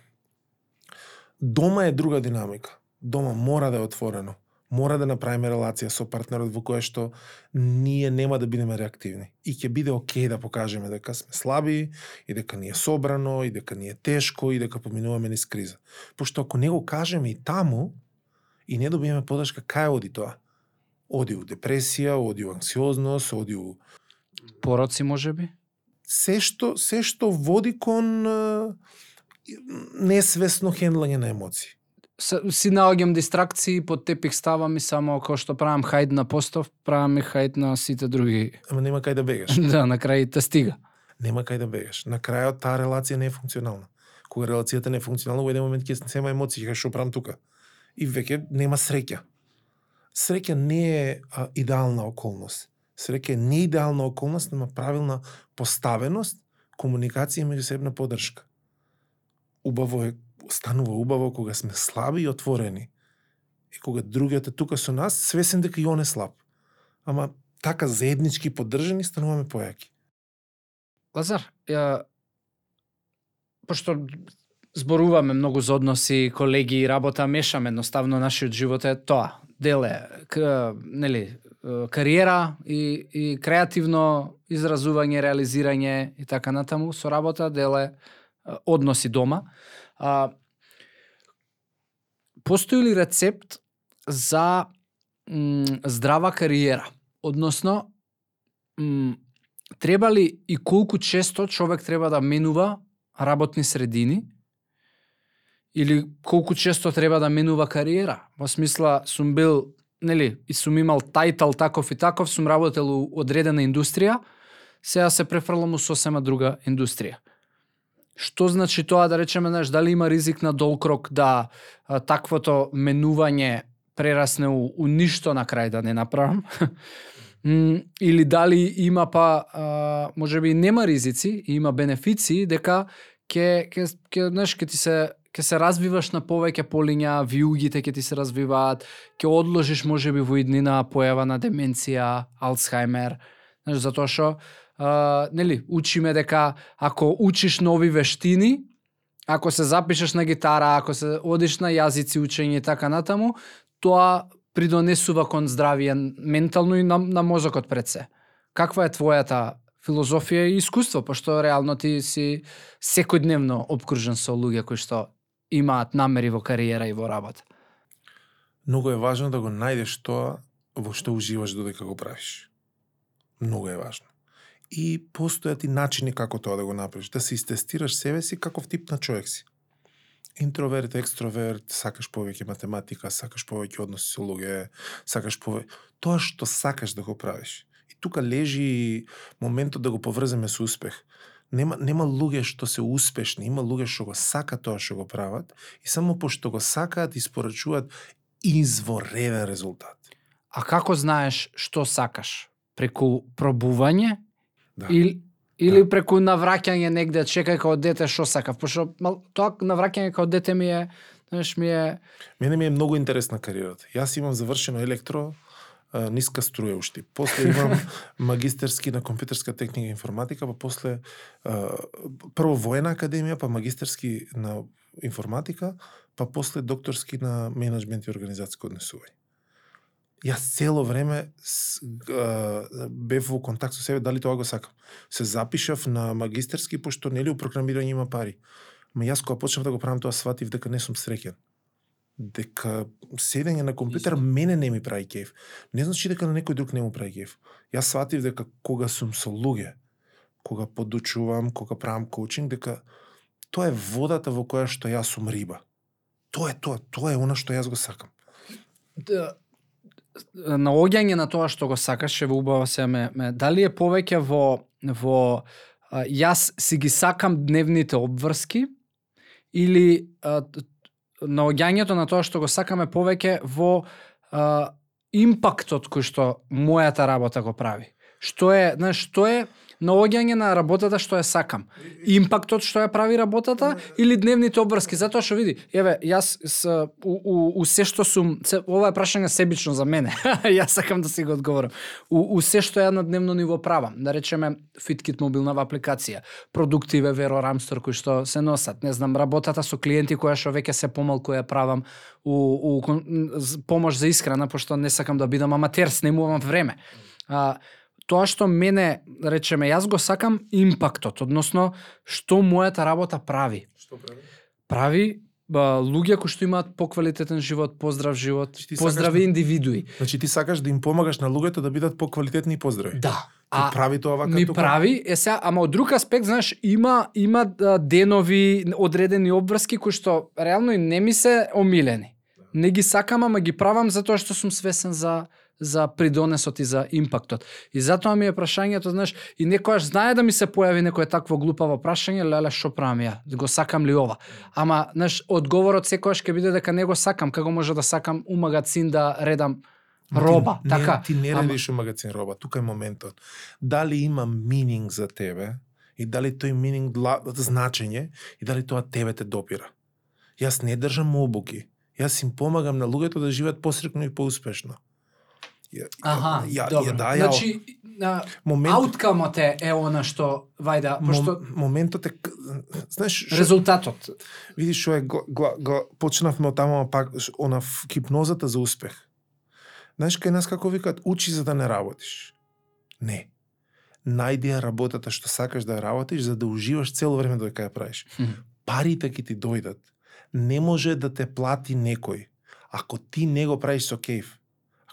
дома е друга динамика. Дома мора да е отворено. Мора да направиме релација со партнерот во која што ние нема да бидеме реактивни. И ќе биде окей да покажеме дека сме слаби, и дека ни е собрано, и дека ни е тешко, и дека поминуваме низ криза. Пошто ако не го кажеме и таму, и не добиеме подршка, кај оди тоа? Оди у депресија, оди у анксиозност, оди у Пороци можеби? се што води кон несвесно хендлање на емоции. Си наоѓам дистракции, под тепих ставам и само како што правам хајд на постов, правам и хајд на сите други. Ама нема кај да бегаш. Да, на крај те стига. Нема кај да бегаш. На крајот таа релација не е функционална. Кога релацијата не е функционална, во еден момент ќе сема емоции, ќе што правам тука. И веќе нема среќа. Среќа не е идеална околност. Среќа е неидеална околност, нема правилна поставеност, комуникација и меѓусебна поддршка. Убаво е, станува убаво кога сме слаби и отворени. И кога другиот е тука со нас, свесен дека и он е слаб. Ама така заеднички поддржани стануваме појаки. Лазар, пошто зборуваме многу за односи, колеги и работа, мешаме едноставно нашиот живот е тоа. Деле, нели, кариера и креативно изразување, реализирање и така натаму со работа, деле односи дома. Постои ли рецепт за здрава кариера? Односно, треба ли и колку често човек треба да менува работни средини? Или колку често треба да менува кариера? Во смисла, сум бил, нели, и сум имал тајтал таков и таков, сум работел у одредена индустрија, сега се префрлам у сосема друга индустрија. Што значи тоа, да речеме, знаеш, дали има ризик на долг да таквото менување прерасне у ништо на крај да не направам? Или дали има можеби нема ризици, има бенефиции, дека ќе се развиваш на повеќе полиња, виугите ќе ти се развиваат, ќе одложиш можеби во иднина појава на деменција, Алцхаймер, знаеш, затоа што нели, учиме дека ако учиш нови вештини, ако се запишеш на гитара, ако се одиш на јазици, учење и така натаму, тоа придонесува кон здравие ментално и на мозокот пред се. Каква е твојата филозофија и искуство, пошто реално ти си секојдневно обкружен со луѓе кои што имаат намери во кариера и во работа? Многу е важно да го најдеш тоа во што уживаш додека го правиш. Многу е важно. И постојат и начини како тоа да го направиш, да се истестираш себе си каков тип на човек си. Интроверт, екстроверт, сакаш повеќе математика, сакаш повеќе односи со луѓе, сакаш повеќе тоа што сакаш да го правиш. И тука лежи моментот да го поврземе со успех. Нема луѓе што се успешни, има луѓе што го сакаат тоа што го прават и само пошто го сакаат испорачуваат извореден резултат. А како знаеш што сакаш? Преку пробување? Да. Или преку навраќање негде, чекај као дете што сакав, пошто тоа навраќање као дете ми е. Мене ми е многу интересна кариерата. Јас имам завршено електро, ниска струја уште. После имам магистерски на компјутерска техника и информатика, па после прво воена академија, па магистерски на информатика, па после докторски на менеджмент и организацијско однесување. Јас цело време бев во контакт со себе дали тоа го сакам. Се запишав на магистерски пошто нели у програмирање има пари. Ма јас кога почнав да го правам тоа сватив дека не сум среќен. Дека седење на компјутер мене не ми прави кеф. Не значи дека на некој друг не му прави кеф. Јас сватив дека кога сум со луѓе, кога подучувам, кога правам коучинг, дека тоа е водата во која што јас сум риба. Тоа е она што јас го сакам. Наоѓање на тоа што го сакаш, ќе во убава се дали е повеќе во јас си ги сакам дневните обврски или наоѓањето на тоа што го сакаме повеќе во импактот кој што мојата работа го прави. Што е наоѓање на работата што ја сакам. Импактот што ја прави работата или дневните обврски, затоа што види, еве, јас у се што сум, ова е прашање себично за мене. Јас сакам да си го одговорам. У се што ја на дневно ниво правам, да речеме FitKit мобилнава апликација, продуктиве Vero Ramstore кои што се носат, не знам, работата со клиенти која што веќе се помалку ја правам у помош за исхрана, пошто не сакам да бидам аматер, снемувам време. Тоа што мене, речеме, јас го сакам импактот, односно што мојата работа прави. Што прави? Прави луѓе кои што имаат поквалитетен живот, поздрав живот, поздрави индивидуи. Значи ти сакаш да им помагаш на луѓето да бидат поквалитетни и поздрави. Да. Ти прави тоа вака ми тука? Прави, сега, ама од друг аспект, знаеш, има денови, одредени обврски кои што реално и не ми се омилени. Не ги сакам, ама ги правам затоа што сум свесен за придонесот и за импактот. И затоа ми е прашањето, знаеш, и некојаш знае да ми се појави некое такво глупаво прашање, леле, што правам ја? Го сакам ли ова? Ама, знаеш, одговорот секојаш ќе биде дека не го сакам, како може да сакам у магазин да редам роба, ти, така. Ти не редиш у магазин роба, тука е моментот. Дали има мининг за тебе и дали тој мининг значење и дали тоа тебе те допира. Јас не држам обуки. Јас им помагам на луѓето да живеат посрекно и поуспешно. Добро. Значи, ауткамот е она што, вајда, пошто... Моментот е, знаеш... Резултатот. Видиш, што е, почнавме од таму, пак, она хипнозата за успех. Знаеш, кај нас како викаат, учи за да не работиш. Не. Најди ја работата што сакаш да ја работиш, за да уживаш цело време додека ја правиш. Парите ќе ти дојдат. Не може да те плати некој, ако ти не го правиш со кејф.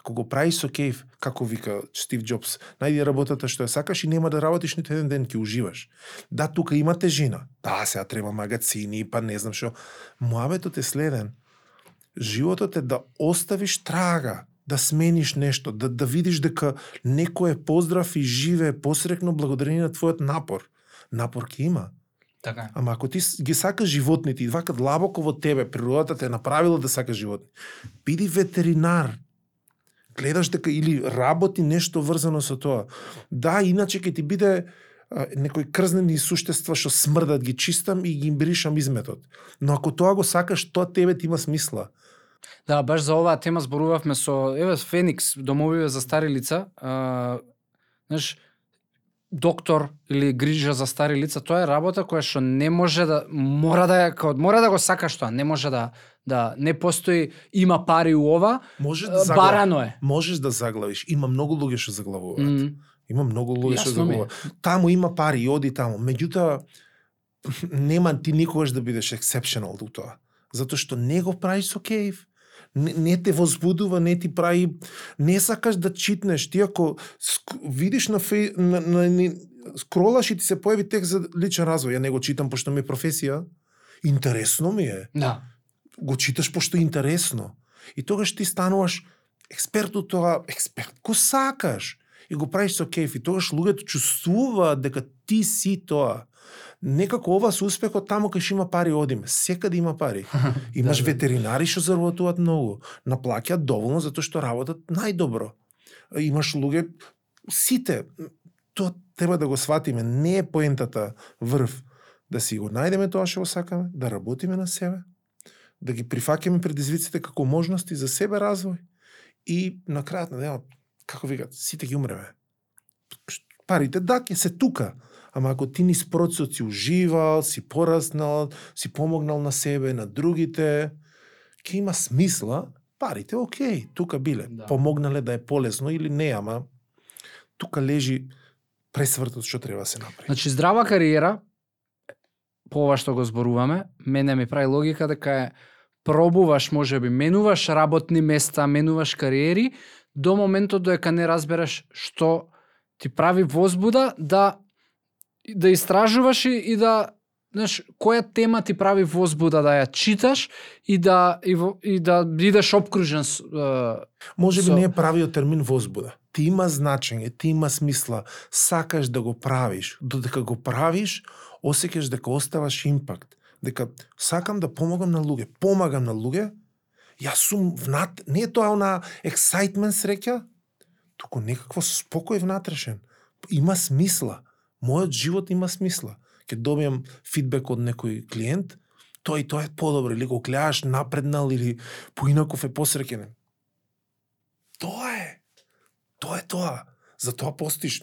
Ако го правиш со кејф, како вика Стив Џобс, најди работата што ја сакаш и нема да работиш ниту еден ден, ќе уживаш. Да, тука има тежина. Да, сега треба магазини, па не знам што. Муабетот е следен. Животот е да оставиш трага, да смениш нешто, да видиш дека некој е поздрав и живее посрекно благодарение на твојот напор. Напор ќе има. Така. Ама ако ти ги сакаш животните и вака длабоко во тебе, природата те е направила да сакаш животни, биди ветеринар. Гледаш дека или работи нешто врзано со тоа. Да, иначе ќе ти биде некои крзнени суштества што смрдат, ги чистам и ги бришам изметот. Но ако тоа го сакаш, тоа тебе ти има смисла. Да, баш за оваа тема зборувавме со Феникс, домовиве за стари лица. Знаеш, доктор или грижа за стари лица, тоа е работа која што не може да мора да го сакаш тоа, не може да не постои има пари у ова. Барано е. Можеш да заглавиш. Има многу луѓе што заглавуваат. Има многу луѓе што заглавуваат. Таму има пари, оди таму. Меѓутоа нема ти никогаш да бидеш exceptional до тоа. Затоа што не го правиш со кејф. Не те возбудува, не ти прави, не сакаш да читнеш. Ти ако видиш на скролаш и ти се појави текст за личен развој, ја не го читам пошто ми е професија, интересно ми е. Да. Го читаш пошто е интересно. И тогаш ти стануваш експерт од тоа, експерт го сакаш и го правиш со кејф. И тогаш луѓето чувствуваат дека ти си тоа. Некако ова со успехот таму кај што има пари одиме. Секаде има пари. Имаш ветеринари што заработуваат многу. Наплаќаат доволно затоа што работат најдобро. Имаш луѓе, сите, тоа треба да го сватиме. Не е поентата врв. Да си го најдеме тоа што го сакаме, да работиме на себе, да ги прифаќаме предизвиците како можности за себе развој и на крајот на денот, како викат, сите ги умреме. Парите да ќе се тука. Ама ако ти низ процесот си уживал, си пораснал, си помогнал на себе, на другите, ќе има смисла, парите окей, тука биле. Да. Помогнале да е полесно или не, ама тука лежи пресвртот што треба да се направи. Значи здрава кариера, по ова што го зборуваме, мене ми прави логика дека е пробуваш, можеби менуваш работни места, менуваш кариери, до моментот додека не разбереш што ти прави возбуда да истражуваш и да, знаеш, која тема ти прави возбуда да ја читаш и да бидеш обкружен Можеби не е правиот термин возбуда. Ти има значење, ти има смисла, сакаш да го правиш, додека го правиш, осеќаш дека оставаш импакт, дека сакам да помагам на луѓе, помагам на луѓе, јас сум не е тоа она excitement среќа, туку некакво спокој внатрешен. Има смисла. мојот живот има смисла. Ке добијам фидбек од некој клиент, тоа е подобро, или го гледаш напреднал, или поинаков е посреќен. Тоа е. Тоа. За тоа постоиш.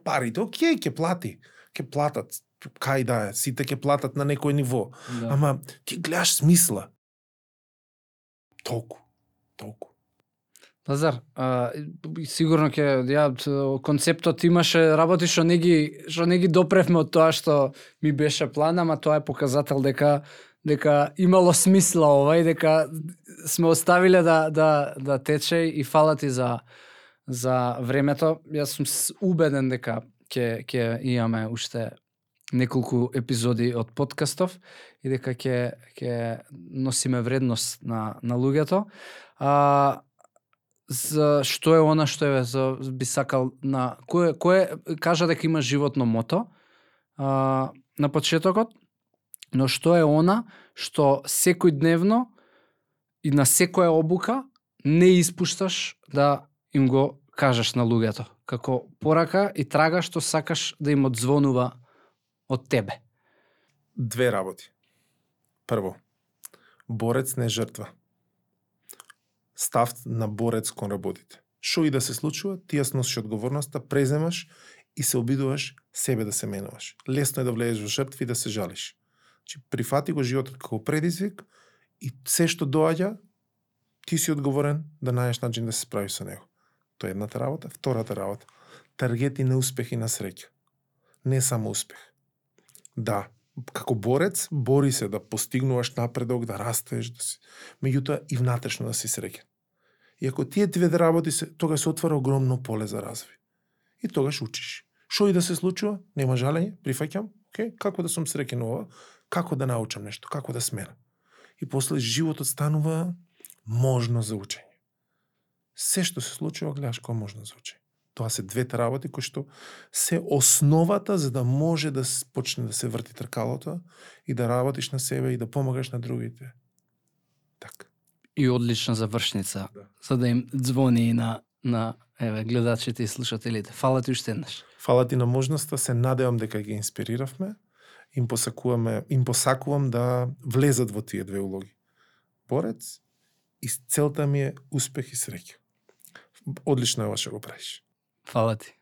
Парите, окей, ќе плати. Ќе платат. Кај да е, сите ќе платат на некој ниво. Да. Ама ти гледаш смисла. Толку. Лазар, сигурно концептот имаше работи што не ги допревме од тоа што ми беше план, ама тоа е показател дека имало смисла ова и дека сме оставиле да тече и фала ти за времето. Јас сум убеден дека ќе имаме уште неколку епизоди од подкастов и дека ќе носиме вредност на луѓето. За што е она што би сакал на кој кажа дека има животно мото на почетокот, но што е она што секојдневно и на секоја обука не испушташ да им го кажеш на луѓето, како порака и трага што сакаш да им одзвонува од тебе? Две работи. Прво, борец не жртва. Став на борец кон работите. Шо и да се случува, ти ја сносиш одговорноста, преземаш и се обидуваш себе да се менуваш. Лесно е да влезеш во жртви и да се жалиш. Прифати го животот како предизвик и се што доаѓа, ти си одговорен да најдеш начин да се справиш со него. Тоа е едната работа. Втората работа. Таргети на успех и на среќа. Не само успех. Да, како борец, бори се да постигнуваш напредок, да растеш, меѓутоа и внатрешно да си среќен. И ако тие две работи тогаш се отвара огромно поле за развој. И тогаш учиш. Што и да се случува, нема жалење, прифаќам, како да сум среќен ова, како да научам нешто, како да сменам. И после животот станува можно за учење. Се што се случува, гледаш кој можно за учење. Тоа се двете работи кои што се основата за да може да почне да се врти тркалото и да работиш на себе и да помагаш на другите. Така. И одлична завршница, за да им звони и на гледачите и слушателите. Фала ти уште еднаш. Фала ти на можноста, се надевам дека ги инспириравме. Им посакувам да влезат во тие две улоги. Борец и целта ми е успех и среќа. Одлично е ова што го правиш. Фала ти.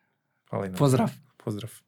Фала и на. Поздрав. Поздрав.